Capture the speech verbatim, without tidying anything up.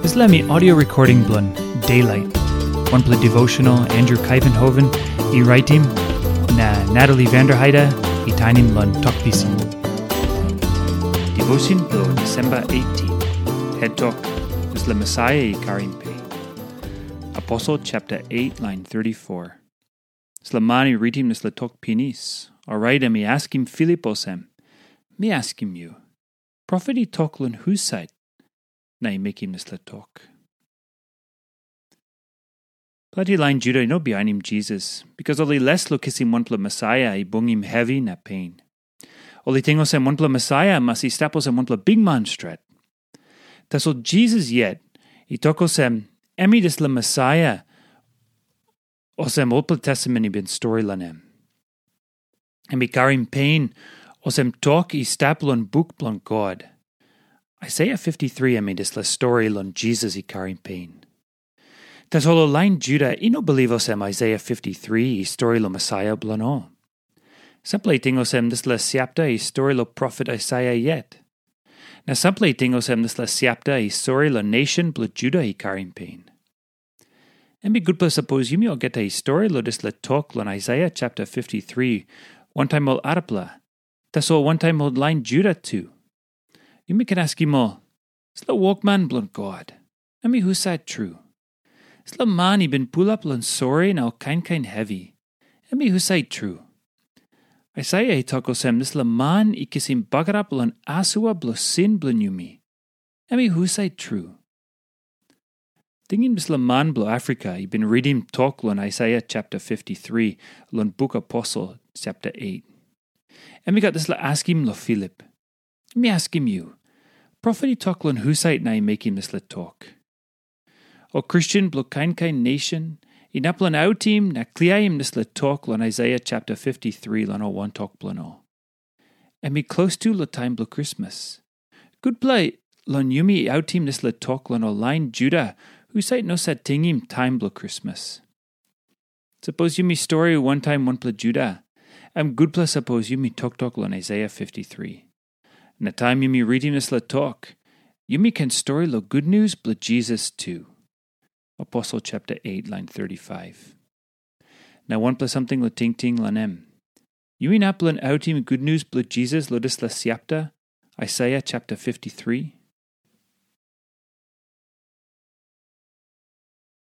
Dispela mi audio recording bilong Daylight, wanpela devotional Andrew Kuyvenhoven i raitim, na Natalie Vanderheide i tainim long Tok Pisin. Devotion bilong December eighteen. Het tok, dispela Mesaia i karim pe. Aposel chapter eight, line thirty-four. Dispela man i ritim dispela tok pinis, orait em i askim Filip olsem, "Mi askim yu, profet i tok long husat na i mekim dispela tok?" Planti lain Juda i no bihainim Jisas, bikas ol i les long kisim wanpela Mesaia i bungim hevi na pen. Ol i ting olsem wanpela Mesaia mas i stap olsem wanpela bikman stret. Tasol Jisas yet i tok olsem, em i dispela Mesaia, olsem olpela testamen i bin stori long em. Em i karim pen, olsem tok i stap long buk bilong God. Aisaia fifty-three em i dispela stori long Jisas i karim pen. Tasol ol lain Juda i no bilip olsem Aisaia fifty-three i stori long Mesaia bilong ol. Sampela i ting olsem dispela siapta i stori long profet Aisaia yet. Na sampela i ting olsem dispela siapta i stori long nation bilong Juda i karim pen. Em i gutpela sapos yumi olgeta i stori long dispela tok long Aisaia chapter fifty-three, wantaim ol arapela, tasol wantaim ol lain Juda tu. Yumi ken askim ol, "Dispela wokman bilong God, em i husat tru? Dispela man i bin pulap long sori na ol kain kain hevi, em i husat tru?" Aisaia i tok olsem, dispela man i kisim bagarap long asua bilong sin bilong yumi, em i husat tru? Tingim dispela man bilong Afrika i bin ritim tok long Aisaia chapter fifty-three long buk Aposel chapter eight. Em i gat dispela askim long Filip. Mi askim yu, profet i tok long husat na i mekim dispela tok? Ol Kristen bilong kain kain nation inap long autim na kliaim dispela tok long Aisaia chapter fifty-three long ol wantok bilong ol. Em i klostu long taim bilong Krismas. Gutpela long yumi autim dispela tok long ol lain Juda husat no sat tingim taim bilong Krismas. Sapos yumi stori wantaim wanpela Juda, em gutpela sapos yumi toktok long Aisaia fifty-three. Na taim yumi ritim dispela tok, yumi ken stori long gutnius bilong Jisas tu. Aposel chapter eight, line thirty-five. Na wanpela samting long tingting long em. Yu inap long autim gutnius bilong Jisas long dispela siapta, Aisaia chapter fifty-three?